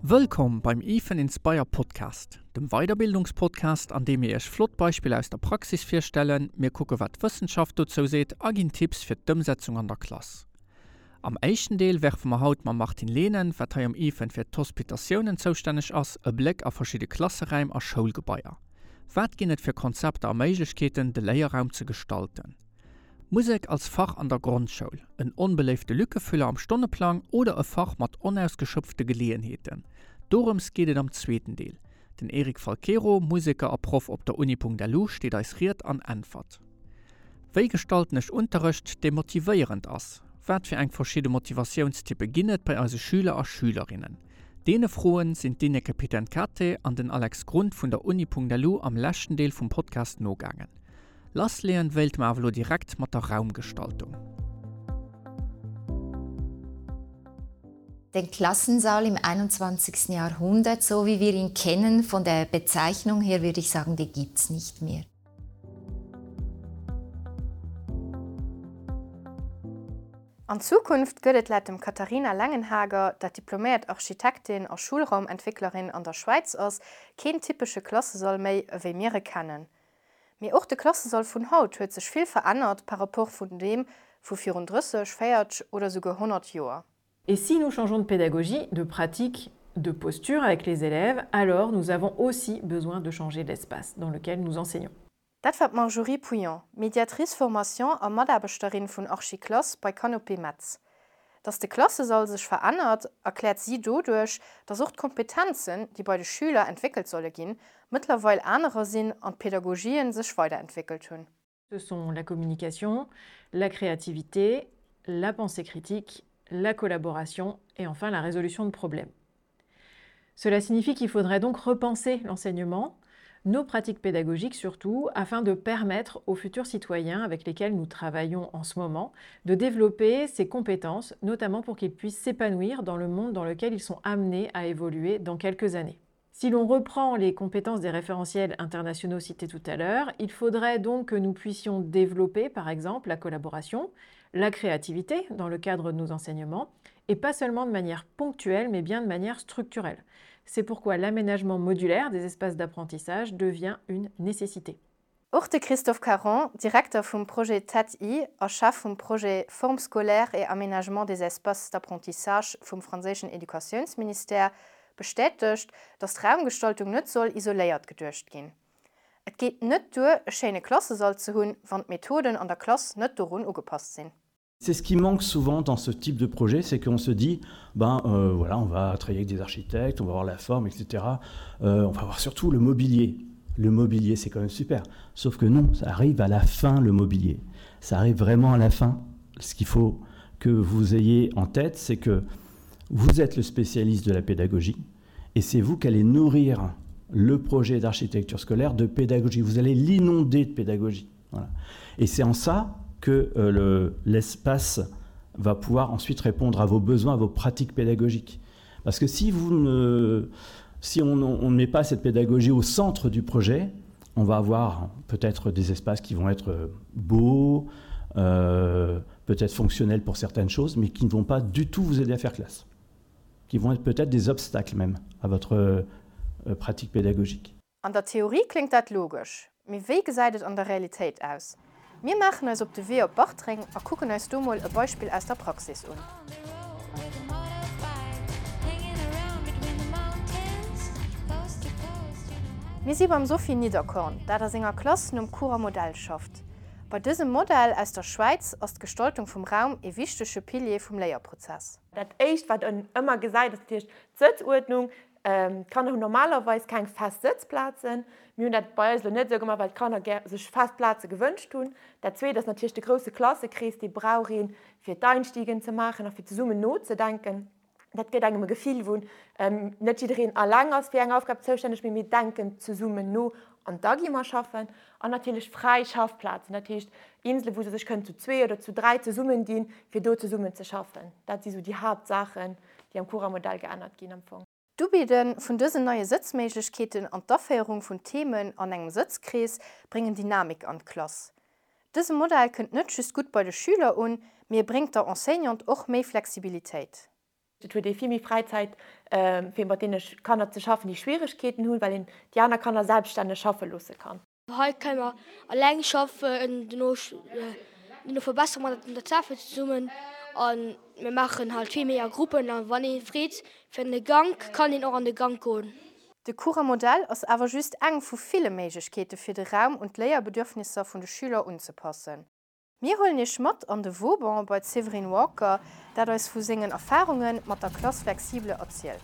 Wëllkomm beim IFEN Inspire Podcast, dem Weiderbildungspodcast, an deem mir Iech flott Beispiller aus der Praxis virstellen, mir kucke wat d'Wëssenschaft dozou seet a ginn Tipps fir d'Ëmsetzung an der Klass. Am éischten Deel werfe mer haut mam Martine Lehnen, wat hei am IFEN fir d'Hospitatiounen zoustänneg ass, e Bléck a verschidde Klasseräim a Schoulgebaier. Wat ginn et fir Konzepter a Méiglechkeeten, de Léierraum ze gestalten? Musek als Fach an der Grondschoul, en onbeléifte Lückefüller am Stonneplang oder e Fach mat onausgeschöpfte Geleeënheeten? Dorëms geet et am zweeten Deel. Den Eric Falquero, Museker a Proff op der Uni.lu steet eis Ried an Äntwert. Wéi gestalten ech Unterrecht, dee motivéierend ass? Wat fir eng verschidde Motivatiounstyppe ginn et bei eise Schüler a Schülerinnen? Deene Froen sinn d'Ineke Pitencate an den Alex Grund vun der Uni.lu am leschten Deel vum Podcast nogaangen. Lassleeën wéilte mer awer elo direkt mat der Raumgestaltung. Den Klassensaal im 21. Jahrhundert, so wie wir ihn kennen, von der Bezeichnung her würde ich sagen, den gibt's nicht mehr. An Zukunft gëtt et laut dem Katharina Lengenhager, dat diploméiert Architektin a Schulraumentwécklerin an der Schwäiz ass, keen typesche Klassesall méi ewéi mir e kennen. Mee och de Klassesall vun haut huet sech vill verännert par rapport vun deem vu virun 30, 40 oder souguer 100 Joer. Et si nous changeons de pédagogie, de pratique, de posture avec les élèves, alors nous avons aussi besoin de changer l'espace dans lequel nous enseignons. Dat war d'Marjorie Pouillon, Médiatrice formation a Mataarbechterin vun Archiclass bei Canopée Metz. Datt de Klassesall sech verännert, erkläert si doduerch, datt och d'Kompetenzen, déi bei de Schüler entwéckelt solle ginn, mëttlerweil anerer sinn an d'Pedagogien sech weiderentwéckelt hunn. Ce sont la communication, la créativité, la pensée critique, la collaboration et enfin la résolution de problèmes. Cela signifie qu'il faudrait donc repenser l'enseignement, nos pratiques pédagogiques surtout, afin de permettre aux futurs citoyens avec lesquels nous travaillons en ce moment de développer ces compétences, notamment pour qu'ils puissent s'épanouir dans le monde dans lequel ils sont amenés à évoluer dans quelques années. Si l'on reprend les compétences des référentiels internationaux cités tout à l'heure, il faudrait donc que nous puissions développer, par exemple, la collaboration, la créativité dans le cadre de nos enseignements, et pas seulement de manière ponctuelle, mais bien de manière structurelle. C'est pourquoi l'aménagement modulaire des espaces d'apprentissage devient une nécessité. Och de Christophe Caron, Direkter vum Projet TED-I a Chef vum Projet Formes scolaires et aménagement des espaces d'apprentissage vum franséischen Educatiounsministère, bestätegt, datt d'Raumgestaltung net soll isoléiert geduecht ginn. Et geet net duer, e schéine Klassesall ze hunn, wann d'Methoden an der Klass net dorun ugepasst sinn. C'est ce qui manque souvent dans ce type de projet, c'est qu'on se dit ben euh, voilà, on va travailler avec des architectes, on va voir la forme, etc. Euh, on va voir surtout le mobilier. Le mobilier, c'est quand même super. Sauf que non, ça arrive à la fin le mobilier. Ça arrive vraiment à la fin. Ce qu'il faut que vous ayez en tête, c'est que vous êtes le spécialiste de la pédagogie et c'est vous qui allez nourrir le projet d'architecture scolaire de pédagogie. Vous allez l'inonder de pédagogie. Voilà. Et c'est en ça que euh, l'espace le, va pouvoir ensuite répondre à vos besoins, à vos pratiques pédagogiques. Parce que si, vous ne, si on ne met pas cette pédagogie au centre du projet, on va avoir peut-être des espaces qui vont être euh, beaux, euh, peut-être fonctionnels pour certaines choses, mais qui ne vont pas du tout vous aider à faire classe, qui vont être peut-être des obstacles même à votre euh, pratique pédagogique. An der Theorie kléngt dat logesch, mee wéi gesäit et an der Realitéit aus? Mir maachen eis op de Wee op Bartreng a kucken eis do mol e Beispill aus der Praxis un. Mir si beim Sophie Niederkorn, dat a senger Klass nom Churer Modell schafft. Bei dësem Modell aus der Schwäiz ass d'Gestaltung vum Raum ee wichtege Pilier vum Léierprozess. Dat éischt wat en ëmmer gesäit ass natierlech d'Sëtzuerdnung. D'Kanner hunn normalerweis keng fest Sëtzplazen. Mir hunn dat bei eis elo net esou gemaach, well d'Kanner gär sech fest Plaze gewënscht hunn. Dat zweet ass natierlech de grousse Klassekrees, dee brauch een, fir d'Einstiegen ze maachen a fir zesummen nozedenken. Dat gëtt engem e Gefill, wou net jiddereen alleng ass fir eng Aufgab zoustänneg, mee mir denken zesummen no an da gi mer schaffen. An natierlech fräi Schaffplazen, dat heescht Insele wou se sech kënnen zu zwee oder zu dräi zesummen dinn, fir do zesummen ze schaffen. Dat si sou déi Haaptsaachen, déi am Cura-Modell geännert ginn am Fong. D'Ubidde vun dësen neie Sëtzméiglechkeeten an d'Aféierung vun Themen an engem Sëtzkrees bréngen Dynamik an d'Klass. Dëse Modell kënnt net just gutt bei de Schüler un, mee e bréngt der Enseignante och méi Flexibilitéit. Et huet ee vill méi Fräizäit, fir mat deene Kanner ze schaffen, déi Schwieregkeeten hunn, well een déi aner Kanner selbststänneg schaffe loosse kann. Hei kënne mer eleng schaffen, dono verbessere mer dat un der Tafel zesummen a mir maachen halt vill méi a Gruppen a wann ee freet fir an de Gank, kann een och an de Gank goen. De Cours-Modell ass awer just eng vu ville Méiglechkeete fir de Raum un d'Léierbedürfnisser vun de Schüler unzepassen. Mir huelen Iech mat an de Vauban bei d'Séverine Walker, dat eis vu sengen Erfarunge mat der Classe flexible erzielt.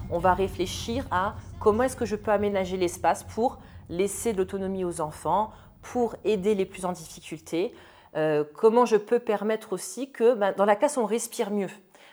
On va réfléchir à comment est-ce que je peux aménager l'espace pour laisser de l'autonomie aux enfants, pour aider les plus en difficulté, euh, comment je peux permettre aussi que ben, dans la classe on respire mieux.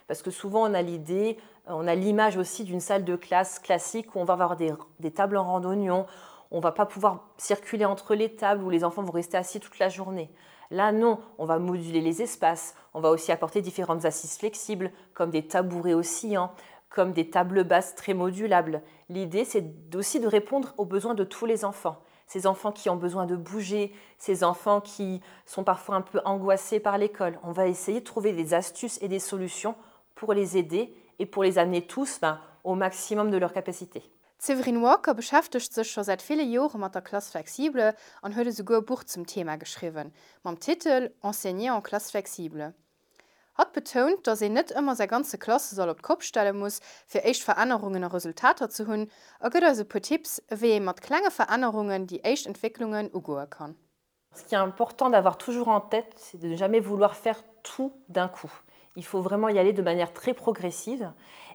Parce que souvent on a l'idée, on a l'image aussi d'une salle de classe classique où on va avoir des, des tables en randonnion, on va pas pouvoir circuler entre les tables où les enfants vont rester assis toute la journée. Là non, on va moduler les espaces, on va aussi apporter différentes assises flexibles comme des tabourets oscillants, comme des tables basses très modulables. L'idée c'est aussi de répondre aux besoins de tous les enfants ces enfants qui ont besoin de bouger, ces enfants qui sont parfois un peu angoissés par l'école. On va essayer de trouver des astuces et des solutions pour les aider et pour les amener tous ben, au maximum de leur capacité. D'Séverine Walker beschäftegt sech scho säit ville Jore mat der Classe flexible an huet esouguer e Buch zum Thema geschriwwen, mam Titel Enseigner en classe flexible. Hatt betount, datt een net ëmmer säi ganze Klassesall op d'Kopp stelle muss, fir éischt Verännerungen a Resultater ze hunn, a gëtt eis e puer Tipps, ewéi ee mat klenge Verännerungen déi éischt Entwécklungen ugoe kann. Ce qui est important d'avoir toujours en tête, c'est de ne jamais vouloir faire tout d'un coup. Il faut vraiment y aller de manière très progressive.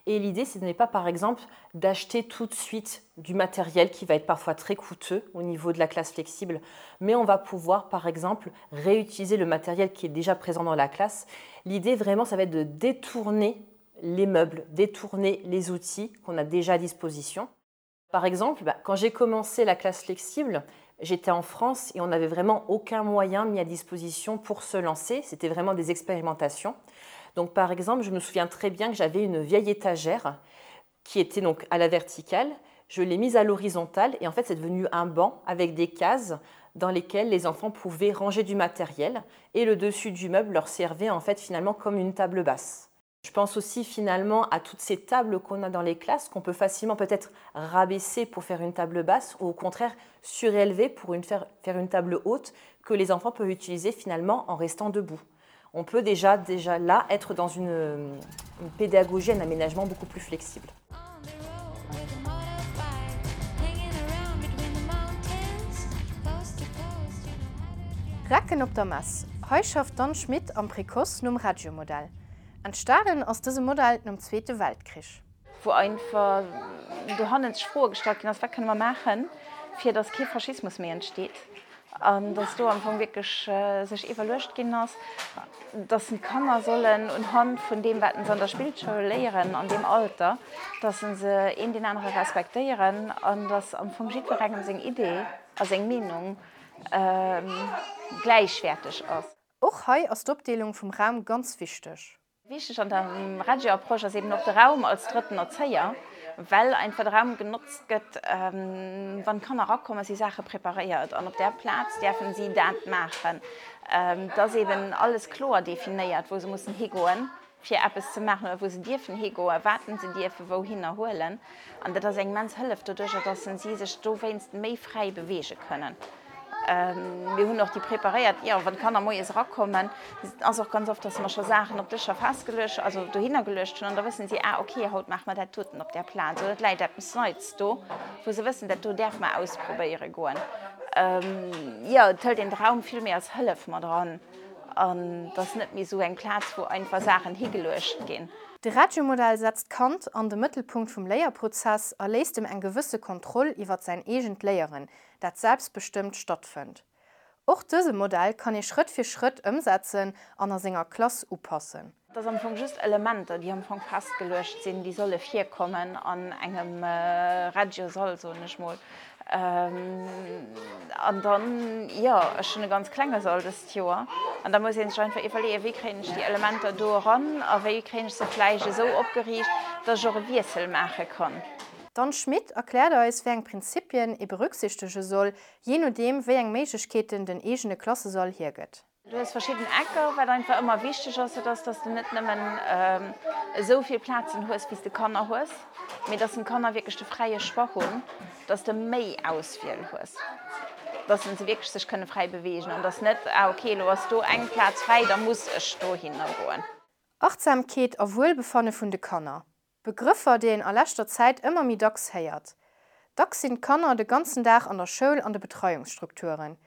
Et l'idée, ce n'est pas par exemple d'acheter tout de suite du matériel qui va être parfois très coûteux au niveau de la classe flexible, mais on va pouvoir par exemple réutiliser le matériel qui est déjà présent dans la classe. L'idée vraiment, ça va être de détourner les meubles, détourner les outils qu'on a déjà à disposition. Par exemple, bah, quand j'ai commencé la classe flexible, j'étais en France et on n'avait vraiment aucun moyen mis à disposition pour se lancer. C'était vraiment des expérimentations. Donc par exemple, je me souviens très bien que j'avais une vieille étagère qui était donc à la verticale. Je l'ai mise à l'horizontale et en fait c'est devenu un banc avec des cases dans lesquelles les enfants pouvaient ranger du matériel et le dessus du meuble leur servait en fait finalement comme une table basse. Je pense aussi finalement à toutes ces tables qu'on a dans les classes qu'on peut facilement peut-être rabaisser pour faire une table basse ou au contraire surélever pour une faire, faire une table haute que les enfants peuvent utiliser finalement en restant debout. On peut déjà, déjà là être dans une, une pédagogie, un aménagement beaucoup plus flexible. Recken op der Mess, Hei schafft d'Anne Schmit am Précoce nom Reggio-Modell. Entstanen ass dëse Modell nom Zweete Weltkrich. Wou einfach dohannen sech Froe gestallt ginn ass, wat kënne mer maachen, fir datt kee Faschismus méi entsteet an datt do am Fong wierklech sech iwwerluecht ginn ass, datt d'Kanner sollen unhand vun deem, wat se an der Spillschoul léieren an deem Alter, datt se een deen anere respektéieren an datt am Fong jiddwerengem seng Idee a seng Meenung gläichwäerteg ass. Och hei ass d'Opdeelung vum Raum ganz wichteg. Wichteg an der Reggio-Approche ass eben och de Raum als drëtten Erzéier, well einfach de Raum genotzt gëtt, wann d'Kanner erakommen, si Saache preparéiert an op där Plaz däerfen si dat maachen. Et ass eben alles kloer definéiert, wou se mussen higoen. fir eppes ze maachen oder wou se dierfen higoen, wat se dierfe wouhinner huelen. An dat ass eng immens Hëllef doduercher, dass si sech dowéinst méi fräi beweege kënnen. Mir hunn och déi preparéiert, jo, wann d'Kanner moies erakommen, ass och ganz oft, dass mer scho Saachen op Dëscher festgeluecht, also dohinner geluecht hunn an da wëssen si, ah okay, haut maache mer dat doten op där Plaz oder et läit eppes Neits do, wou se wëssen, dat do däerfe mer ausprobéiere goen. Jo, et hëlt een de Raum vill méi als Hëllef mat eran. An et ass net méi esou eng Plaz, wou einfach Saachen higeluecht ginn. De Reggio-Modell setzt d'Kand an de Mëttelpunkt vum Léierprozess a léisst em eng gewësse Kontroll iwwert säin eegent Léieren, dat selbstbestëmmt stattfënnt. Och dëse Modell kann ee Schrëtt fir Schrëtt ëmsetzen an a senger Klass upassen. Et ass am Fong just Elementer, déi am Fong festgeluecht sinn, déi solle virkommen an engem Reggio-Sall, soen ech mol. An dann, jo, ech hunn e ganz klenge Sall dëst Joer. An da muss ee sech einfach iwwerleeën, wéi kréien ech déi Elementer do eran a wéi kréien ech se vläicht esou opgeriicht, dass ech och e Wiessel maache kann. D'Anne Schmit erkläert eis, wéi eng Prinzippien ee berücksichtege soll, jee nodeem wéi eng Méiglechkeeten den eegene Klassesall hiergëtt. Du hues verschidden Ecker. Wat einfach ëmmer wichteg ass, dat ass, dass de net nëmmen esou vill Plazen hues, wéi s de Kanner hues, mee dass den Kanner wierklech de fräie Choix hunn, dass de méi Auswiel hues, dass se wierklech sech kënne fräi beweegen an dass net, ah okay, elo ass do eng Plaz fräi, da muss ech dohinner goen. Achtsamkeet a Wuelbefanne vun de Kanner. Begrëffer, déi een a leschter Zäit ëmmer méi dacks héiert. Dacks sinn d'Kanner de ganzen Dag an der Schoul an de Betreiungsstrukturen.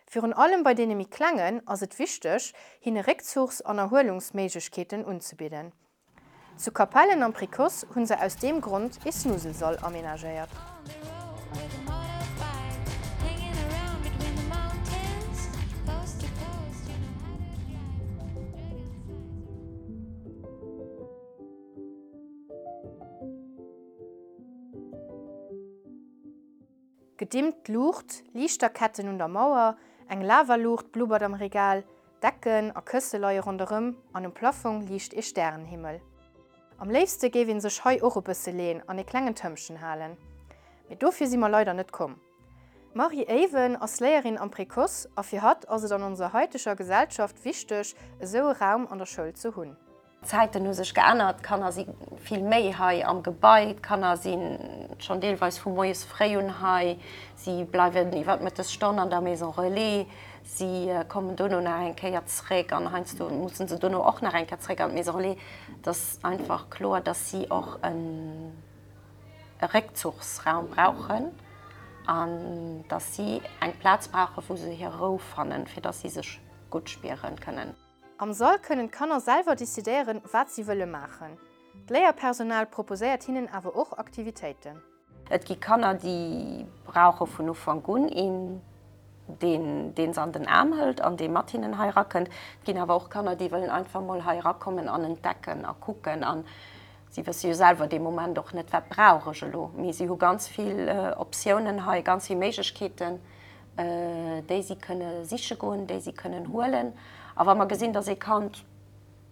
Virun allem bei deene méi Klengen ass et wichteg, hinne Réckzuchs an Erhuelungsméiglechkeeten unzebidden. Zu Capellen am Précoce hu se aus deem Grond ee Snuselsall amenagéiert. Gedimmt Luucht, Liichterketten un der Mauer, eng Lavaluucht blubbert am Regal, Decken a Kësse leie ronderëm an um Plaffong liicht ee Stärenhimmel. Am léifste géif een sech hei och e bësse leen an ee klengen Tëmpchen halen. Mee dofir si mer leider net komm. D'Marie Eyven ass Léierin am Précoce a fir hatt ass et an onser haiteger Gesellschaft wichteg, esou e Raum an der Schoul ze hunn. D'Zäiten hu sech geännert, d'Kanner si vill méi hei am Gebai, d'Kanner si schonn deelweis vu moies fréi un hei, si bleiwen iwwer d'Mëttesstonn an der Maison Relais, si kommen dono nach eng Kéier zréck an heiansdo musse se dono och nach eng Kéier zréck an d'Maison Relais. Et ass einfach kloer, dass si och e Réckzuchsraum brauchen an dass si eng Plaz brauchen, wou se hir Rou fannen, fir dass si sech gutt spiere kënnen. Am Sall kënnen d'Kanner selwer decidéieren, wat si wëlle maachen. D'Léierpersonal proposéiert hinnen awer och Aktivitéiten. Et gi Kanner, déi brauche vun Ufank un een, deen deen se an den Aarm hëlt an dee mat hinnen hei erakënnt. Et ginn awer och Kanner, déi wëllen einfach mol hei erakommen an entdecken a kucken. A si wësse jo selwer dee Moment och net, wat brauch ech elo. Mee si hu ganz vill Optiounen hei, ganz vill Méiglechkeeten. déi si kënne siche goen, déi si kënnen huelen. A wa mer gesinn, dass ee Kand,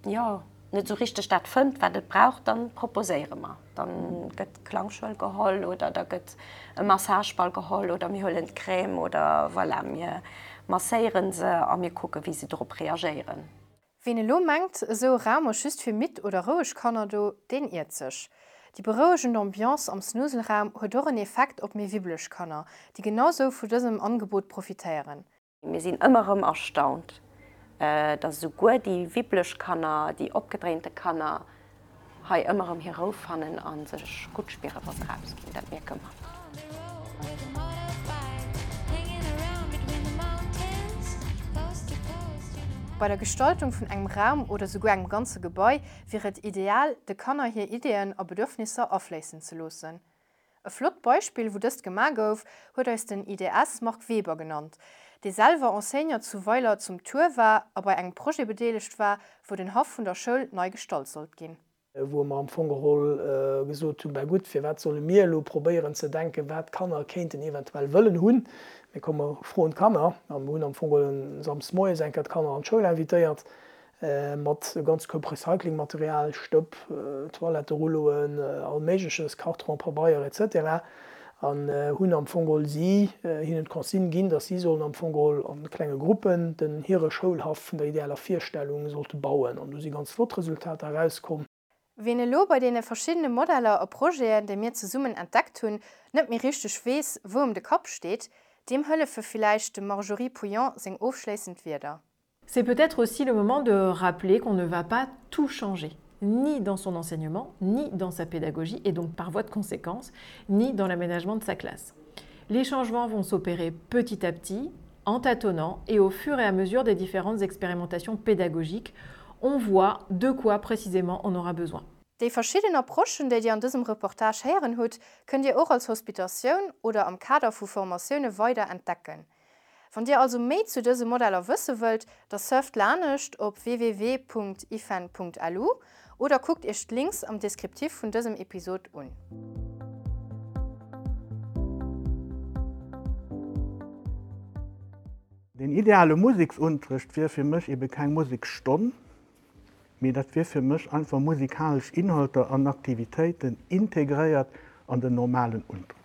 jo, net esou richteg dat fënnt, wat et brauch, da proposéiere mer. Da gëtt d'Klangschuel geholl oder da gëtt e Massageball geholl oder mir huelen d'Crème oder voilà, mir masséiere se a mir kucke wéi se drop reagéieren. Ween elo mengt, esou e Raum ass just fir midd oder roueg Kanner do, deen iert sech. Déi berouegend Ambiance am Snuselraum huet och en Effekt op méi wibbeleg Kanner, déi genau sou vu dësem Angebot profitéieren. Mir sinn ëmmer erëm erstaunt, dass esouguer déi wibbeleg Kanner, déi opgedréinte Kanner hei ëmmer erëm hir Rou fannen a sech gutt spieren, wa se erausginn. Dat mierke mer. Bei der Gestaltung vun engem Raum oder souguer engem ganze Gebai wier et ideal, de Kanner hir Ideeën a Bedürfnisser afléissen ze loossen. E flott Beispill, wou dëst gemaach gouf, huet eis den IDS Marc Weber genannt, dee selwer Enseignant zu Weiler zum Tuer war a bei engem Projet bedeelegt war, wou den Haff vun der Schoul nei gestalt sollt ginn. Wou mer am Fong geholl gesot hunn, Ben gutt, firwat solle mir elo probéieren ze denken, wat d'Kanner kéinten eventuell wëllen hunn? Mee komm, mer froen d'Kanner. A mer hunn am Fong geholl samsdes moies eng Kéier d'Kanner an d'Schoul invitéiert Mat e ganze Koup Recyclingmaterial, Stëpp, Toiletterulloen, all Méigleches, Karton, Pabeier, etc. An hunn am Fong geholl si hinnen d'Consigne ginn, dass si sollen am Fong geholl a klenge Gruppen den hire Schoulhaff vun der idealer Virstellung sollte bauen. An do si ganz flott Resultater erauskomm. Ween elo bei deene verschiddene Modeller a Projeten, déi mir zesummen entdeckt hunn, net méi richteg weess, wou em de Kapp steet, deem hëllefe villäicht dem Marjorie Pouillon seng ofschléissend Wierder. C'est peut-être aussi le moment de rappeler qu'on ne va pas tout changer ni dans son enseignement, ni dans sa pédagogie et donc par voie de conséquence, ni dans l'aménagement de sa classe. Les changements vont s'opérer petit à petit, en tâtonnant et au fur et à mesure des différentes expérimentations pédagogiques, on voit de quoi précisément on aura besoin. Déi verschidden Approchen, déi Dir an dësem Reportage héieren hutt, kënnt Dir och als Hospitatioun oder am Kader vu Formatioune weider entdecken. Wann Dir also méi zu dëse Modeller wësse wëllt, da surft lanescht op www.ifen.lu oder kuckt Iech d'Links am Descriptif vun dësem Episod un. Den ideale Museksunterrecht wier fir mech ebe keng Museksstonn, mee dat wier fir mech einfach musikalesch Inhalter an Aktivitéiten integréiert. an den normalen Unterrecht.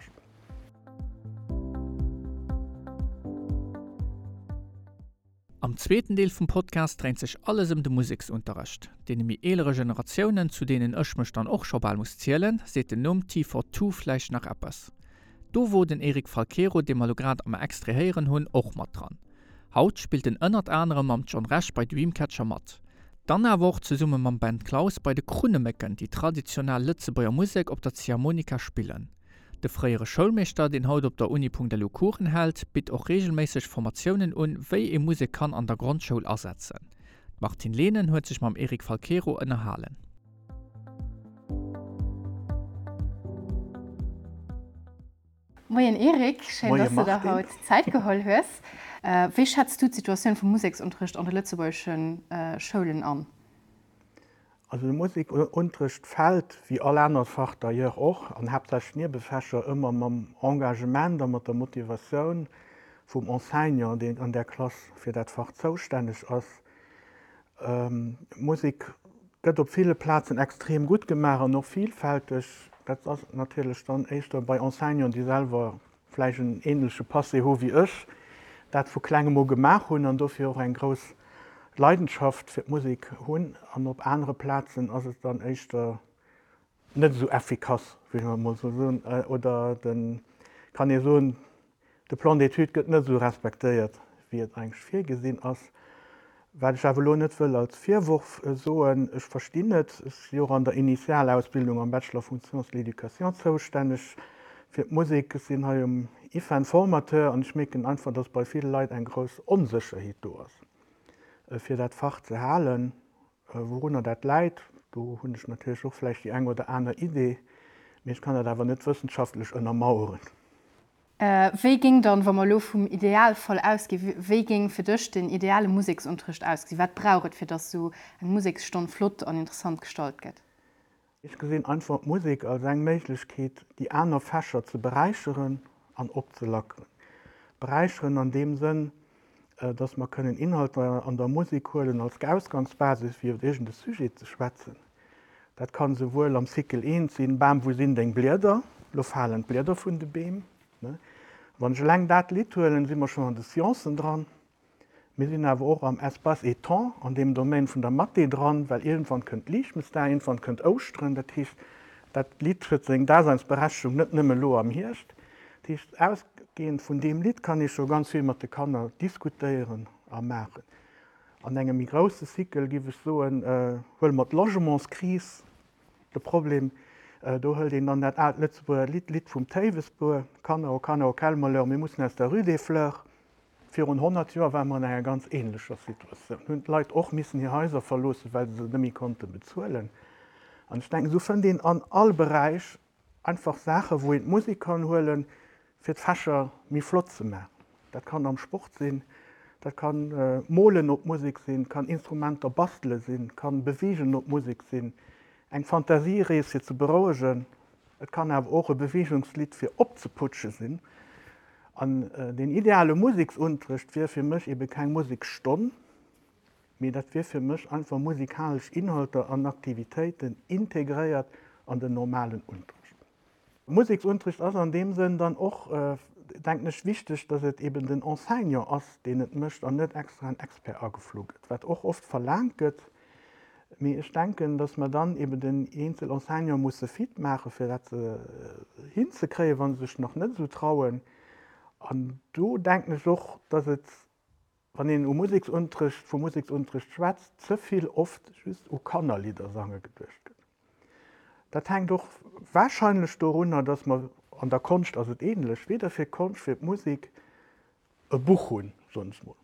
Am zweeten Deel vum Podcast dréint sech alles ëm de Museksunterrecht. Deene méi eelere Generatiounen, zu deenen ech mech dann och scho bal muss zielen, seet den Numm T42 vläicht nach eppes. Do wor den Eric Falquero, dee mer lo grad am Extrait héieren hunn, och mat dran. Haut spillt en ënnert anerem mam John Rech bei Dreamcatcher mat. Dann awer och zesumme mam Ben Claus bei de Krunnemécken, déi traditionell Lëtzebuerger Musek op der Ziehharmonika spillen. De fréiere Schoulmeeschter, deen haut op der Uni.lu Coursen hält, bitt och reegelméisseg Formatiounen un, wéi ee Musek kann an der Grondschoul asetzen. D'Martine Lehnen huet sech mam Eric Falquero ënnerhalen. Moien Eric, schéin Moie dass de der Martine. haut Zäit geholl hues. Wéi schätz du d'Situatioun vum Museksunterricht an de lëtzebuergesche Schoulen an? Also de Musekunterricht fält, wéi all anert Fach d'ailleurs och, an haaptsächlech d'Niewefächer, ëmmer mam Engagement a mat der Motivatioun vum Enseignant, deen an där Klass fir dat Fach zoustänneg ass. Musek gëtt op ville Plazen extrem gutt gemaach an och vielfälteg. Dat ass natierlech dann éischter bei Enseignanten, déi selwer vläicht en ähnleche Passé hu wéi ech, dat vu klengem u gemaach hunn an dofir och eng grouss Leidenschaft fir d'Musek hunn. An op anere Plazen ass et dann éischter net esou effikass, wéi mer emol esou soen, oder de, kann ee soen, de Plan d'études gëtt net esou respektéiert, wéi et eigentlech virgesinn ass. Wat ech awer elo net wëll als Virworf soen, ech verstinn et, ech si och an der Initialausbildung am Bachelor vun Sciences de l'éducation zoustänneg fir d'Musek, ech sinn hei um IFEN Formateur an ech mierken einfach, dass bei ville Leit eng grouss Onsécherheet do ass, fir dat Fach ze halen. Wourunner dat läit, do hunn ech natierlech och vläicht déi eng oder aner Idee, mee ech kann dat awer net wëssenschaftlech ënnermaueren. Wéi géing dann, wa mer elo vum Idealfall ausginn, wéi géing fir dech den ideale Museksunterricht ausgesinn? Wat brauch et, fir dass esou eng Museksstonn flott an interessant gestalt gëtt? Ech gesinn einfach d'Musek als eng Méiglechkeet, déi aner Fächer ze beräicheren an opzelackeren. Beräicheren an deem Sënn, dass mer kënnen Inhalter an der Musek huelen als Ausgangsbasis, fir iwwer iergend e Sujet ze schwätzen. Dat kann esouwuel am Cycle I sinn, Bam, wou sinn deng Blieder? Lo falen d'Blieder vun de Beem. Wann ech eleng dat Lidd huelen, si mer schonn an de Sciencen dran. Mir sinn awer och am Espace et Temps, an deem Domaine vun der Mathé dran, well iergendwann kënnt Liichtmesdag, iergendwann kënnt Ouschteren. Dat heescht, dat Lidd huet seng Daseinsberechtegung net nëmme elo am Hierscht. Dat heescht, ausgehend vun deem Lidd kann ee scho ganz vill mat de Kanner diskutéieren a maachen. An engem méi grousse Cycle, géif ech soen, huele mer d'Logementskris, de Problem. Do hëlt een dann dat aalt Lëtzebuerger Lidd, d'Lidd vum Théiwesbuer, Kanner, oh Kanner, oh quel malheur, mir mussen aus der Rue des Fleurs. Virun 100 Joer ware mer an enger ganz ähnlecher Situatioun, hunn d'Leit och missen hir Haiser verloossen, well se se net méi konnte bezuelen. An ech denken, esou fënnt een an all Beräich einfach Saachen, wou een d'Musek kann huelen, fir d'Fächer méi flott ze maachen. Dat kann am Sport sinn, dat kann Molen op Musek sinn, kann Instrumenter bastele sinn, kann Beweegen op Musek sinn, eng Fantasierees fir ze berouegen. Et kann awer och e Beweegungslidd fir opzeputsche sinn. An deen ideale Museksunterrecht wier fir mech ebe keng Museksstonn, mee dat wier fir mech einfach musikalesch Inhalter an Aktivitéiten integréiert an den normalen Unterrecht. Museksunterrecht ass an deem Sënn dann och, denken ech, wichteg, dass et eben den Enseignant ass, deen et mécht an net extra en Expert ageflu gëtt, wat och oft verlaangt gëtt. Mee ech denken, dass mer dann eben den eenzel Enseignant musse fit maachen, fir dat hinzekréien, wa se sech nach net esou trauen. An do denken ech och, dass et, wann een u Museksunterrecht, vu Museksunterrecht schwätzt, ze vill oft just u Kannerlidder sange geduecht gëtt. Dat hänkt och wahrscheinlech dorunner, dass mer, an der Konscht ass et ähnlech, weder fir d'Konscht, fir d'Musek e Buch hunn, soen ech mol.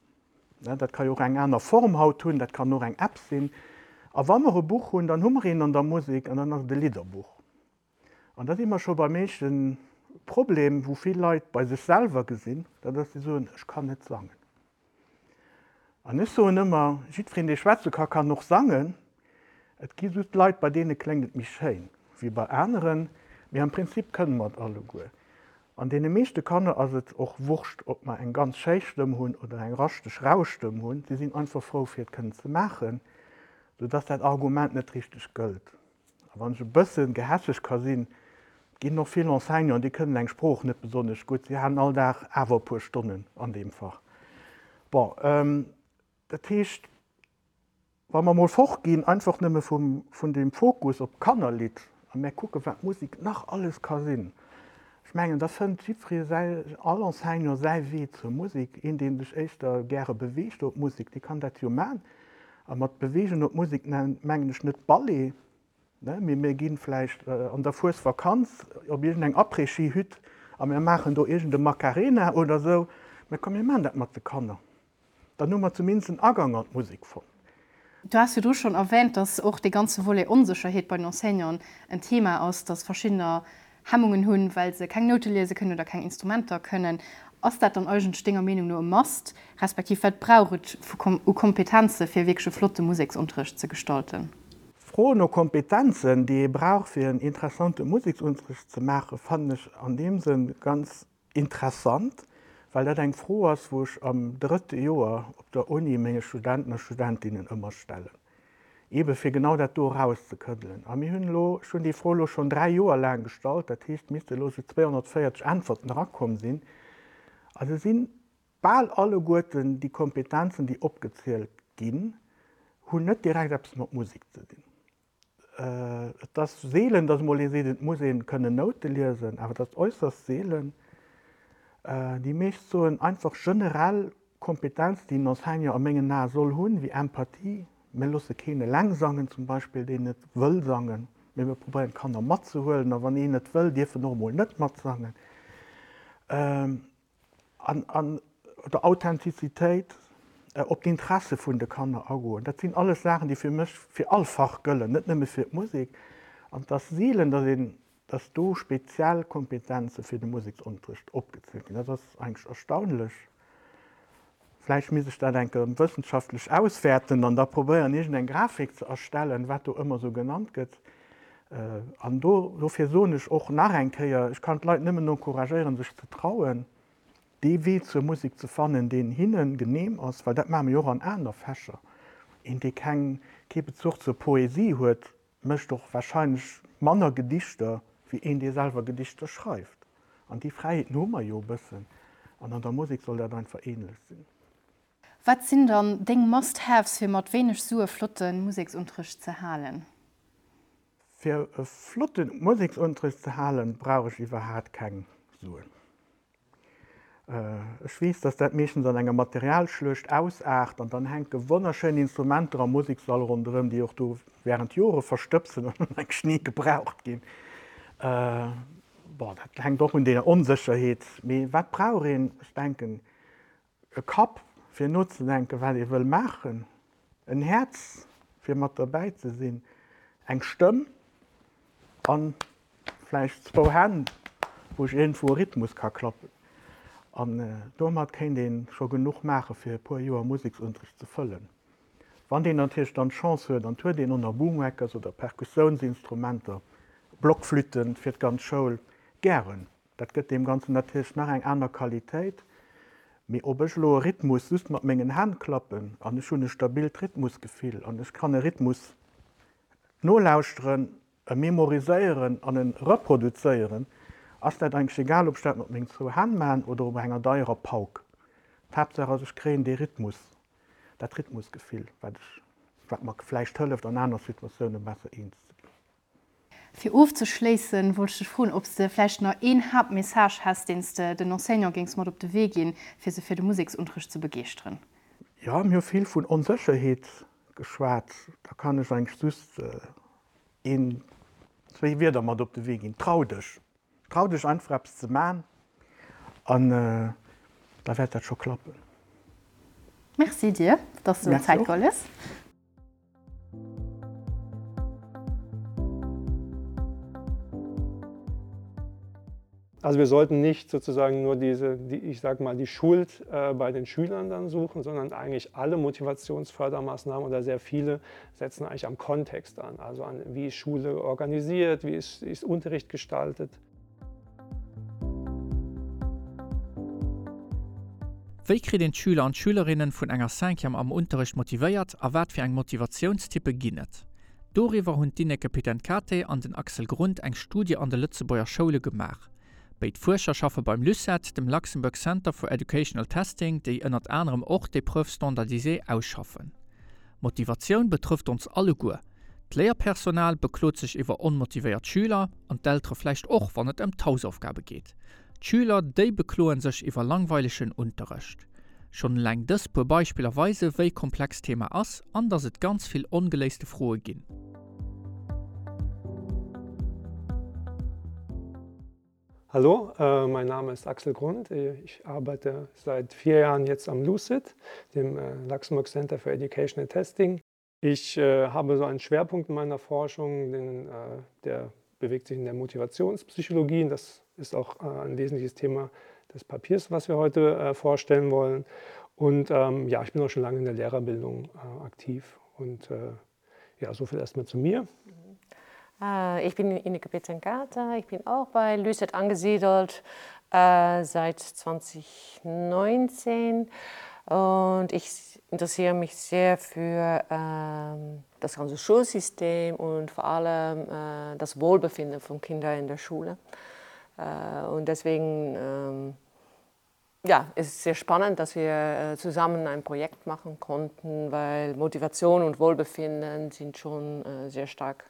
Dat ka jo och eng aner Form haut hunn, dat kann och eng App sinn. A wa mer e Buch hunn, dann hu mer een an der Musek an dann ass et e Lidderbuch. An da si mer scho beim éischte Problem, wou vill Leit bei sech selwer gesinn, dat ass, déi soen, ech kann net sangen. An ech soen ëmmer, jiddwereen, dee schwätze ka, kann och sangen. Et gi just Leit, bei deene kléngt et méi schéin wéi bei aneren, mee am Prinzip kënne mer et alleguer. An deene meeschte Kanner ass et och Wurscht, ob mer eng ganz schéi Stëmm hunn oder eng raschteg, rau Stëmm hunn. Si sinn einfach frou, fir et kënnen ze maachen, soudass dat Argument net richteg gëllt. A wann ech e bësse gehässeg ka sinn, Ginn och vill Enseignanten, déi kënnen eng Sprooch net besonnesch gutt, si halen all Dag awer e puer Stonnen an deem Fach. Bon, dat heescht, wa mer emol fortginn, einfach nëmme vum, vun deem Fokus op d'Kannerlidd a mär kucken, wat Musek nach alles ka sinn, ech mengen, da fënnt jiddweree säi, all Enseignant säi Wee zur Musek. Een, dee sech éischter gäre beweegt op Musek, dee kann dat jo man. A mat beweegen op Musek mengen ech net Ballet, Mee mir gi vläicht an der Fuesvakanz op iergendeng Après-Ski-Hütt a mir maachen do iergende Macarena oder esou. Mä komm, mir maachen dat mat de Kanner. Dann hu mer zumindest en Agang an d'Musek fonnt. Du has virdru schonn erwähnt, dass och dee ganze Volet Onsécherheet bei den Enseignanten en Thema ass, dass verschiddener Hemmungen hunn, well se keng Noute liese kënnen oder keng Instrumenter kënnen. Ass dat dann eigentlech denger Meenung no e Must, respektiv wat brauch et u Kompetenze fir wierklech e flotte Museksunterrecht ze gestalten? D'Fro no Kompetenzen, déi ee brauch fir en interessante Museksunterrecht ze maachen, fannen ech an deem Sënn ganz interessant, well dat eng Fro ass, wou ech am drëtte Joer op der Uni menge Studenten a Studentinnen ëmmer stellen, eebe fir genau dat do erauszekëddelen. A mir hunn elo, ech hunn déi Fro elo schonn dräi Joer laang gestallt, dat heescht, et misste elo esou 240 Äntwerten erakomm sinn, a se sinn bal alleguerten déi Kompetenzen, déi opgezielt ginn, hunn net direkt eppes mat Musek ze dinn. Et ass seelen, datt emol ee seet, et muss ee kënnen Noute liesen, awer et ass äusserst seelen. Déi meescht soen einfach generell Kompetenzen, déi en Enseignant a mengen Ae soll hunn, wéi Empathie. Mir loosse keen eleng sangen zum Beispill, deen net wëll sangen, mee mir probéieren d'Kanner matzehuelen a wann een net wëll, dierf en och emol net matsangen. An, an der Authentizitéit, op d'Interesse vun de Kanner agoen. Dat sinn alles Saachen, déi fir mech fir all Fach gëllen, net nëmme fir d'Musek. An et ass seelen, datt een, datt do speziell Kompetenze fir de Museksunterrecht opgezielt ginn. Dat ass eigentlech erstaunlech. Vläicht misst ech dat eng Kéier wëssenschaftlech auswäerten an da probéieren, iergendeng Grafik ze erstellen, wat do ëmmer esou genannt gëtt. An do, dofir soen ech och nach eng Kéier, ech kann d'Leit nëmmen encouragéieren, sech ze trauen, dee Wee zur Musek ze fannen, deen hinne genehm ass, well dat maache mir jo och an aner Fächer. Een, dee keng, kee Bezuch zur Poesie huet, mécht och wahrscheinlech manner Gedichter wéi een, dee selwer Gedichter schreift. An déi Fräiheeten hu mer jo e bëssen. An an der Musek soll dat einfach ähnlech sinn. Wat sinn dann deng Must-Haves fir mat wéineg Sue flotte Museksunterrecht ze halen? Fir e flotte Museksunterrecht ze halen, brauch ech iwwerhaat keng Suen. Ech weess, dass dat meeschtens an enger Materialschluecht ausaart an dann hänke wonnerschéin Instrumenter am Musekssall ronderëm, déi och do während Jore verstëbsen an eigentlech ni gebraucht ginn. Bon, dat hänkt och un deeër Onsécherheet. Mee wat brauch een? Ech denken, E Kapp, fir nozedenken, wat ee wëll maachen, en Häerz, fir mat derbäi ze sinn, eng Stëmm a vläicht zwou Hänn, wou ech iergendwou e Rhythmus ka klappen. An domat kéint ee scho genuch maachen, fir e puer Joer Museksunterricht ze fëllen. Wann deen natierlech dann d'Chance huet an et huet een och nach Boomwhackers oder Perkussiounsinstrumenter, Blockflütten fir d'ganz Schoul, gären. Dat gëtt deem Ganzen natierlech nach eng aner Qualitéit. Mee ob ech elo e Rhythmus just mat mengen Hänn klappen an ech hunn e stabilt Rhythmusgefill an ech kann e Rhythmus nolauschteren, e memoriséieren an e reproduzéieren, ass dat eigentlech egal, ob ech dat mat mengen zwou Hänn maachen oder op enger deierer Pauk. D'Haaptsaach ass, ech kréien dee Rhythmus, dat Rhythmusgefill, wat ech, wat mer vläicht hëlleft, an aner Situatioune besser eens ze ginn. Fir ofzeschléissen, wollt ech dech froen, ob s de vläicht nach een Haaptmessage häss, deen s de den Enseignante géings mat op de Wee ginn, fir se fir de Museksunterrecht ze begeeschteren. Jo, mir hu vill vun Onsécherheet geschwat. Da kann ech eigentlech just een, zwéi Wierder mat op de Wee ginn, Trau dech! Trau dech einfach eppes ze man an da wäert dat scho klappen. Merci dir, dass du der Zäit geholl hues. Also wir sollten nicht sozusagen nur diese, die, ich sag mal, die Schuld äh, bei den Schülern dann suchen, sondern eigentlich alle Motivationsfördermaßnahmen oder sehr viele setzen eigentlich am Kontext an, also an wie ist Schule organisiert, wie ist, ist Unterricht gestaltet. Wéi kritt een d'Schüler an d'Schülerinnen vun enger Cinquième am Unterrecht motivéiert a wat fir eng Motivatiounstyppe ginn et? Doriwwer hunn d'Ineke Pitenkate an den Axel Grund eng Studie an de Lëtzebuerger Schoule gemaach. Béid Fuerscher schaffe beim LUCET, dem Luxembourg Center for Educational Testing, déi ënnert anerem och d'Épreuves standardisées ausschaffen. Motivatioun betrëfft ons alleguer. D'Léierpersonal beklot sech iwwer onmotivéiert Schüler, an d'Eltere vläicht och, wann et ëm d'Hausaufgabe geet. D'Schüler, déi bekloen sech iwwer langweilegen Unterrecht. Schonn eleng dës puer Beispiller weise wéi komplex d'Thema ass an datt et ganz vill ongeléiste Froe ginn. Hallo, äh, mein Name ist Axel Grund. Ich arbeite seit vier Jahren jetzt am LUCID, dem äh, Luxembourg Center for Educational Testing. Ich äh, habe so einen Schwerpunkt in meiner Forschung, den, äh, der bewegt sich in der Motivationspsychologie. Das ist auch äh, ein wesentliches Thema des Papiers, was wir heute äh, vorstellen wollen. Und ähm, ja, ich bin auch schon lange in der Lehrerbildung äh, aktiv und äh, ja, so viel erstmal zu mir. Äh, ich bin Ineke Pitzenkata, ich bin auch bei Lüset angesiedelt äh, seit 2019 und ich interessiere mich sehr für äh, das ganze Schulsystem und vor allem äh, das Wohlbefinden von Kindern in der Schule. Äh, und deswegen ähm, ja, es ist sehr spannend, dass wir äh, zusammen ein Projekt machen konnten, weil Motivation und Wohlbefinden sind schon äh, sehr stark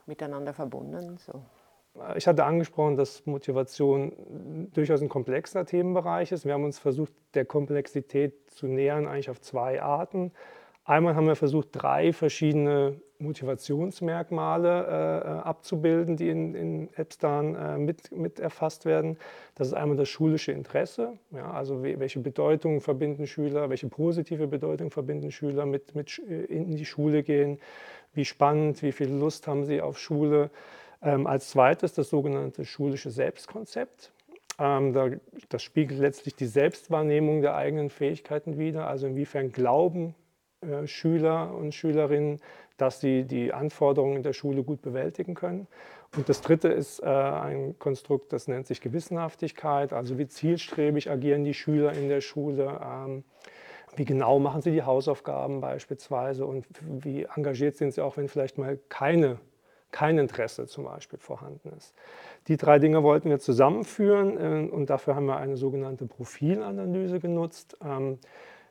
miteinander verbunden. So. Ich hatte angesprochen, dass Motivation durchaus ein komplexer Themenbereich ist. Wir haben uns versucht, der Komplexität zu nähern, eigentlich auf zwei Arten. Einmal haben wir versucht, drei verschiedene Motivationsmerkmale äh, äh abzubilden, die in, in Epstein äh, mit, mit erfasst werden. Das ist einmal das schulische Interesse, ja, also welche Bedeutung verbinden Schüler, welche positive Bedeutung verbinden Schüler mit, mit äh, in die Schule gehen, wie spannend, wie viel Lust haben sie auf Schule. Ähm, als zweites das sogenannte schulische Selbstkonzept. Ähm, da, das spiegelt letztlich die Selbstwahrnehmung der eigenen Fähigkeiten wider, also inwiefern glauben äh, Schüler und Schülerinnen, dass sie die Anforderungen in der Schule gut bewältigen können. Und das Dritte ist äh, ein Konstrukt, das nennt sich Gewissenhaftigkeit, also wie zielstrebig agieren die Schüler in der Schule, ähm, wie genau machen sie die Hausaufgaben beispielsweise und wie engagiert sind sie auch, wenn vielleicht mal keine kein Interesse zum Beispiel vorhanden ist. Die drei Dinge wollten wir zusammenführen äh, und dafür haben wir eine sogenannte Profilanalyse genutzt. Ähm,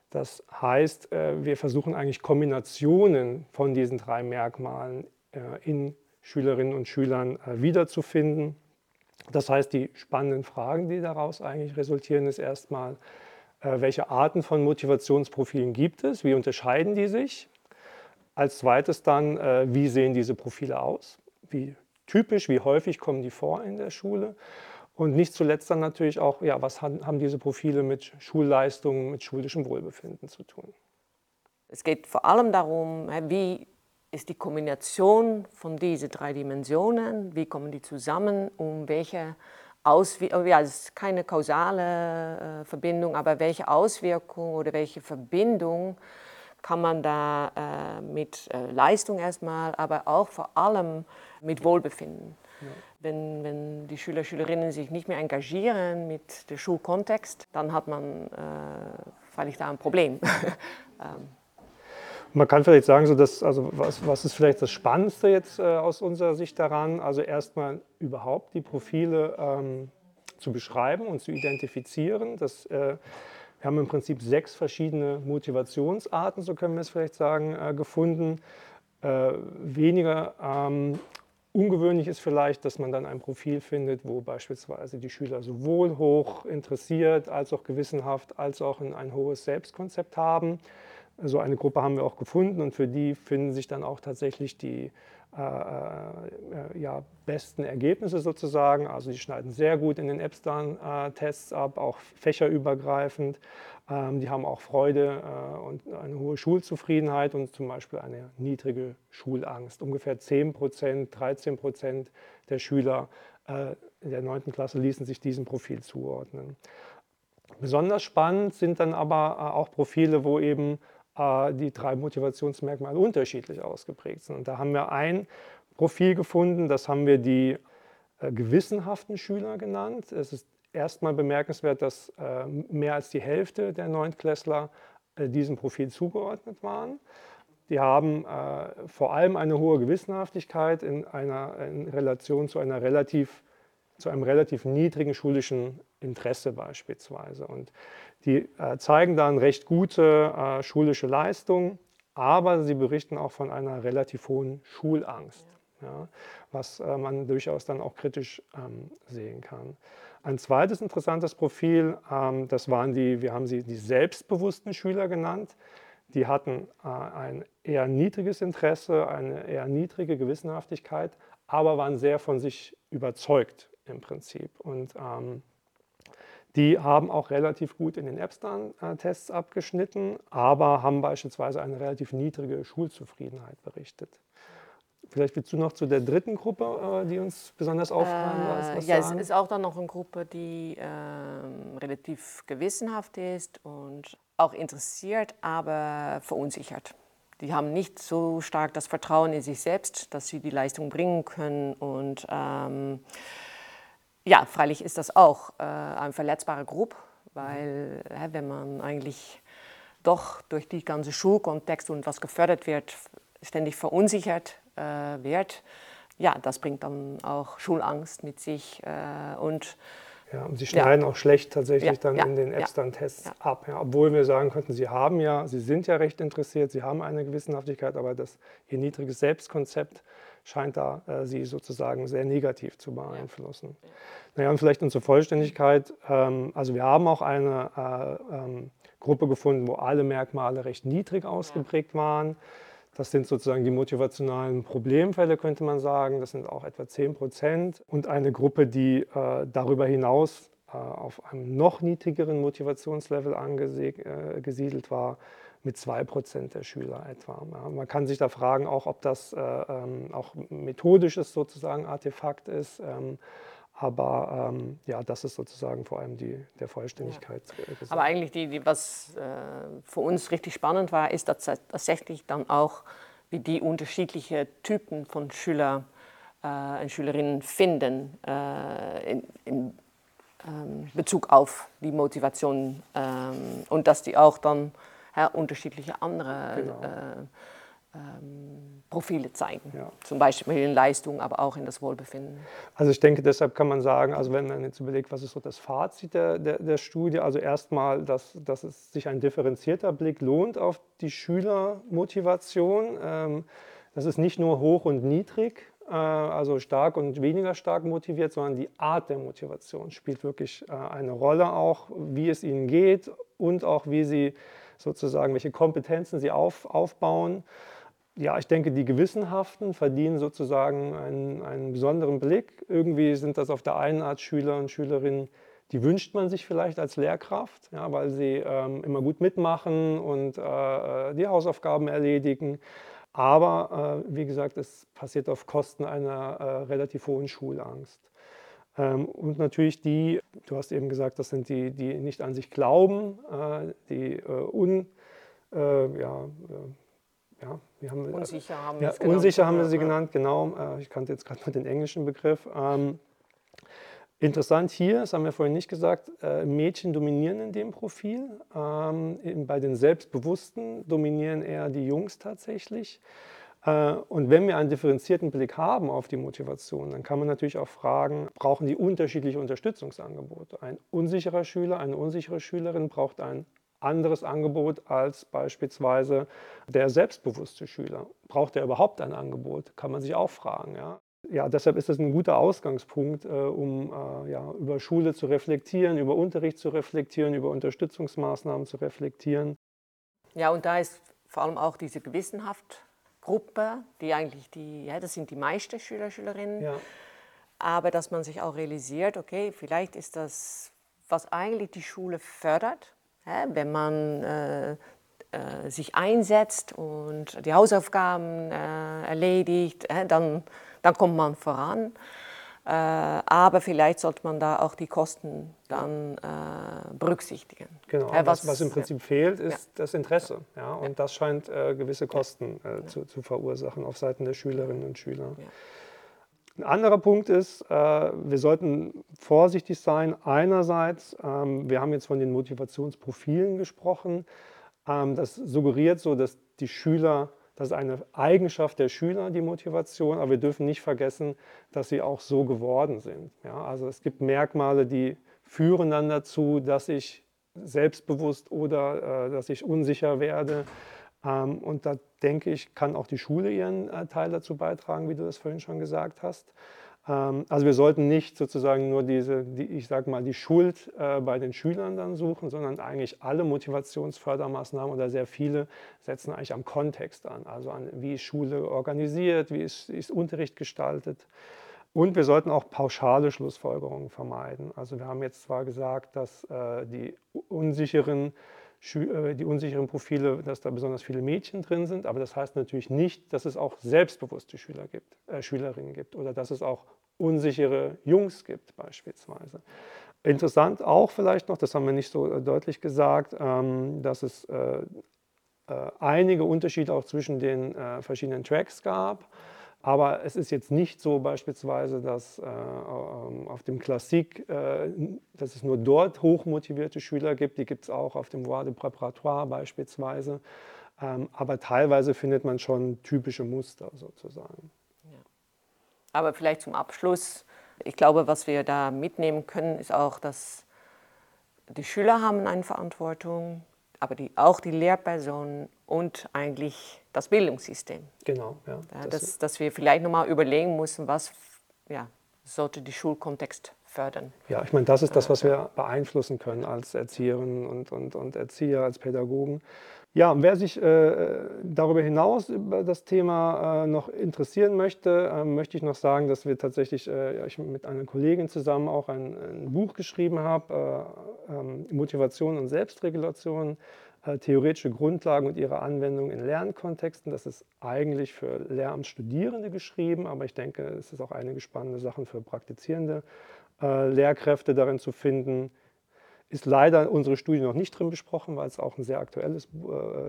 das heißt, äh, wir versuchen eigentlich Kombinationen von diesen drei Merkmalen äh, in Schülerinnen und Schülern wiederzufinden. Das heißt, die spannenden Fragen, die daraus eigentlich resultieren, ist erstmal, welche Arten von Motivationsprofilen gibt es? Wie unterscheiden die sich? Als zweites dann, wie sehen diese Profile aus? Wie typisch, wie häufig kommen die vor in der Schule? Und nicht zuletzt dann natürlich auch, ja, was haben diese Profile mit Schulleistungen, mit schulischem Wohlbefinden zu tun? Es geht vor allem darum, wie ist die Kombination von diesen drei Dimensionen, wie kommen die zusammen, um welche Auswirkung, oh ja, es ist keine kausale äh, Verbindung, aber welche Auswirkung oder welche Verbindung kann man da äh, mit äh, Leistung erstmal, aber auch vor allem mit Wohlbefinden. Ja. Wenn, wenn die Schüler, Schülerinnen sich nicht mehr engagieren mit dem Schulkontext, dann hat man äh, freilich da ein Problem. ähm. Man kann vielleicht sagen, so dass, also was, was ist vielleicht das Spannendste jetzt äh, aus unserer Sicht daran? Also erstmal überhaupt die Profile ähm, zu beschreiben und zu identifizieren. Das, äh, wir haben im Prinzip sechs verschiedene Motivationsarten, so können wir es vielleicht sagen, äh, gefunden. Äh, weniger ähm, ungewöhnlich ist vielleicht, dass man dann ein Profil findet, wo beispielsweise die Schüler sowohl hoch interessiert als auch gewissenhaft als auch ein, ein hohes Selbstkonzept haben. So eine Gruppe haben wir auch gefunden und für die finden sich dann auch tatsächlich die äh, äh, ja, besten Ergebnisse sozusagen. Also die schneiden sehr gut in den Epstein-Tests ab, auch fächerübergreifend. Ähm, die haben auch Freude äh, und eine hohe Schulzufriedenheit und zum Beispiel eine niedrige Schulangst. Ungefähr 10 Prozent, 13 Prozent der Schüler äh, in der 9. Klasse ließen sich diesem Profil zuordnen. Besonders spannend sind dann aber äh, auch Profile, wo eben äh, die drei Motivationsmerkmale unterschiedlich ausgeprägt sind. Und da haben wir ein Profil gefunden, das haben wir die äh, gewissenhaften Schüler genannt. Es ist erstmal bemerkenswert, dass mehr als die Hälfte der Neuntklässler diesem Profil zugeordnet waren. Die haben äh, vor allem eine hohe Gewissenhaftigkeit in einer in Relation zu einer relativ zu einem relativ niedrigen schulischen Interesse beispielsweise. Und die äh, zeigen dann recht gute äh, schulische Leistung, aber sie berichten auch von einer relativ hohen Schulangst, ja. Ja, was äh, man durchaus dann auch kritisch ähm, sehen kann. Ein zweites interessantes Profil, ähm, das waren die, wir haben sie die selbstbewussten Schüler genannt. Die hatten äh, ein eher niedriges Interesse, eine eher niedrige Gewissenhaftigkeit, aber waren sehr von sich überzeugt im Prinzip. Und ähm, die haben auch relativ gut in den Epstein-Tests abgeschnitten, aber haben beispielsweise eine relativ niedrige Schulzufriedenheit berichtet. Vielleicht willst du noch zu der dritten Gruppe, äh, die uns besonders auffallen äh, was ja, sagen? es ist auch dann noch eine Gruppe, die äh, relativ gewissenhaft ist und auch interessiert, aber verunsichert. Die haben nicht so stark das Vertrauen in sich selbst, dass sie die Leistung bringen können und ähm, ja, freilich ist das auch äh, eine verletzbare Gruppe, weil äh, wenn man eigentlich doch durch die ganze Schulkontext und was gefördert wird, ständig verunsichert äh, wird, ja, das bringt dann auch Schulangst mit sich äh, und ja, und sie schneiden ja. auch schlecht tatsächlich ja, dann ja, in den Epstein-Tests ja. ab. Ja, obwohl wir sagen könnten, sie haben ja, sie sind ja recht interessiert, sie haben eine Gewissenhaftigkeit, aber das, ihr niedriges Selbstkonzept scheint da äh, sie sozusagen sehr negativ zu beeinflussen. Ja. Naja, und vielleicht unsere Vollständigkeit, ähm, also wir haben auch eine äh, ähm, Gruppe gefunden, wo alle Merkmale recht niedrig ausgeprägt ja. waren. Das sind sozusagen die motivationalen Problemfälle, könnte man sagen. Das sind auch etwa 10 Prozent. Und eine Gruppe, die äh, darüber hinaus äh, auf einem noch niedrigeren Motivationslevel angesiedelt äh, war, mit 2 Prozent der Schüler etwa. Ja, man kann sich da fragen, auch ob das äh, ähm, auch methodisches sozusagen Artefakt ist. Ähm, aber ähm, ja, das ist sozusagen vor allem die, der Vollständigkeit. Ja. Gesagt. Aber eigentlich, die, die, was äh, für uns richtig spannend war, ist dass tatsächlich dann auch, wie die unterschiedlichen Typen von Schüler äh, und Schülerinnen finden äh, in, in ähm, Bezug auf die Motivation ähm, und dass die auch dann ja, unterschiedliche andere genau. äh, ähm, Profile zeigen. Ja. Zum Beispiel in Leistung, aber auch in das Wohlbefinden. Also ich denke, deshalb kann man sagen, also wenn man jetzt überlegt, was ist so das Fazit der, der, der Studie, also erstmal, dass, dass es sich ein differenzierter Blick lohnt auf die Schülermotivation. Ähm, das ist nicht nur hoch und niedrig, äh, also stark und weniger stark motiviert, sondern die Art der Motivation spielt wirklich äh, eine Rolle auch, wie es ihnen geht und auch wie sie sozusagen, welche Kompetenzen sie auf, aufbauen. Ja, ich denke, die Gewissenhaften verdienen sozusagen einen, einen besonderen Blick. Irgendwie sind das auf der einen Art Schüler und Schülerinnen, die wünscht man sich vielleicht als Lehrkraft, ja, weil sie ähm, immer gut mitmachen und äh, die Hausaufgaben erledigen. Aber äh, wie gesagt, es passiert auf Kosten einer äh, relativ hohen Schulangst. Ähm, und natürlich die, du hast eben gesagt, das sind die, die nicht an sich glauben, äh, die äh, un, äh, ja, äh, ja, wie haben wir, unsicher haben ja, wir unsicher haben wir sie genannt, genau. Äh, ich kannte jetzt gerade nur den englischen Begriff. Ähm, interessant hier, das haben wir vorhin nicht gesagt, äh, Mädchen dominieren in dem Profil. Ähm, bei den Selbstbewussten dominieren eher die Jungs tatsächlich. Äh, und wenn wir einen differenzierten Blick haben auf die Motivation, dann kann man natürlich auch fragen, brauchen die unterschiedliche Unterstützungsangebote? Ein unsicherer Schüler, eine unsichere Schülerin braucht ein anderes Angebot als beispielsweise der selbstbewusste Schüler. Braucht er überhaupt ein Angebot? Kann man sich auch fragen. Ja? Ja, deshalb ist das ein guter Ausgangspunkt, äh, um äh, ja, über Schule zu reflektieren, über Unterricht zu reflektieren, über Unterstützungsmaßnahmen zu reflektieren. Ja, und da ist vor allem auch diese Gewissenhaft Gruppe, die eigentlich die, ja, das sind die meisten Schüler, Schülerinnen. Ja. Aber dass man sich auch realisiert, okay, vielleicht ist das, was eigentlich die Schule fördert, ja, wenn man äh, äh, sich einsetzt und die Hausaufgaben äh, erledigt, äh, dann, dann kommt man voran. Äh, aber vielleicht sollte man da auch die Kosten dann äh, berücksichtigen. Genau, ja, was, was im Prinzip ja. fehlt, ist ja. das Interesse. Ja, und ja. das scheint äh, gewisse Kosten äh, zu, zu verursachen auf Seiten der Schülerinnen und Schüler. Ja. Ein anderer Punkt ist, äh, wir sollten vorsichtig sein. Einerseits, ähm, wir haben jetzt von den Motivationsprofilen gesprochen. Ähm, das suggeriert so, dass die Schüler Das ist eine Eigenschaft der Schüler, die Motivation, aber wir dürfen nicht vergessen, dass sie auch so geworden sind. Ja, also es gibt Merkmale, die führen dann dazu, dass ich selbstbewusst oder äh, dass ich unsicher werde. Ähm, und da denke ich, kann auch die Schule ihren äh, Teil dazu beitragen, wie du das vorhin schon gesagt hast. Ähm, also wir sollten nicht sozusagen nur diese, die, ich sag mal, die Schuld äh, bei den Schülern dann suchen, sondern eigentlich alle Motivationsfördermaßnahmen oder sehr viele setzen eigentlich am Kontext an, also an wie ist Schule organisiert, wie ist, ist Unterricht gestaltet. Und wir sollten auch pauschale Schlussfolgerungen vermeiden. Also wir haben jetzt zwar gesagt, dass äh, die unsicheren äh, die unsicheren Profile, dass da besonders viele Mädchen drin sind, aber das heißt natürlich nicht, dass es auch selbstbewusste Schüler gibt, äh, Schülerinnen gibt oder dass es auch unsichere Jungs gibt beispielsweise. Interessant auch vielleicht noch, das haben wir nicht so äh, deutlich gesagt, ähm, dass es äh, äh, einige Unterschiede auch zwischen den äh, verschiedenen Tracks gab. Aber es ist jetzt nicht so beispielsweise, dass äh, ähm, auf dem Klassik, äh, dass es nur dort hochmotivierte Schüler gibt. Die gibt es auch auf dem Voie de Préparatoire beispielsweise. Ähm, aber teilweise findet man schon typische Muster sozusagen. Ja. Aber vielleicht zum Abschluss. Ich glaube, was wir da mitnehmen können, ist auch, dass die Schüler haben eine Verantwortung, aber die, auch die Lehrpersonen und eigentlich das Bildungssystem. Genau, ja. ja dass, dass wir vielleicht noch mal überlegen müssen, was ja, sollte die Schulkontext fördern. Ja, ich meine, das ist das, was wir beeinflussen können als Erzieherinnen und, und, und Erzieher, als Pädagogen. Ja, und wer sich äh, darüber hinaus über das Thema äh, noch interessieren möchte, äh, möchte ich noch sagen, dass wir tatsächlich äh, ich mit einer Kollegin zusammen auch ein, ein Buch geschrieben habe, äh, ähm, Motivation und Selbstregulation, äh, theoretische Grundlagen und ihre Anwendung in Lernkontexten. Das ist eigentlich für Lehramtsstudierende geschrieben, aber ich denke, es ist auch einige spannende Sachen für praktizierende äh, Lehrkräfte darin zu finden. Ist leider unsere Studie noch nicht drin besprochen, weil es auch ein sehr aktuelles, äh,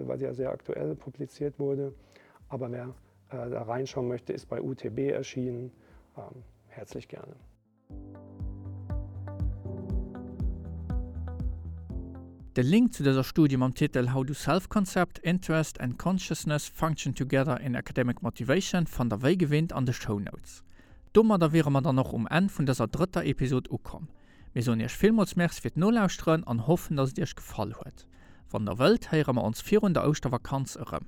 weil sie ja sehr aktuell publiziert wurde. Aber wer äh, da reinschauen möchte, ist bei UTB erschienen. Ähm, herzlich gerne. De Link zu dëser Studie mam Titel How do Self-Concept, Interest and Consciousness Function Together in Academic Motivation fannt der wéi gewinnt an de Shownotes. Domadder wiere mer dann och um Enn vun dëser drëtter Episod ukomm. Mir soen iech villmools Merci fir d'Nolauschteren an hoffen, dass et iech gefall huet. Wann der wëllt, héiere mer ons virun der Ouschtervakanz erëm.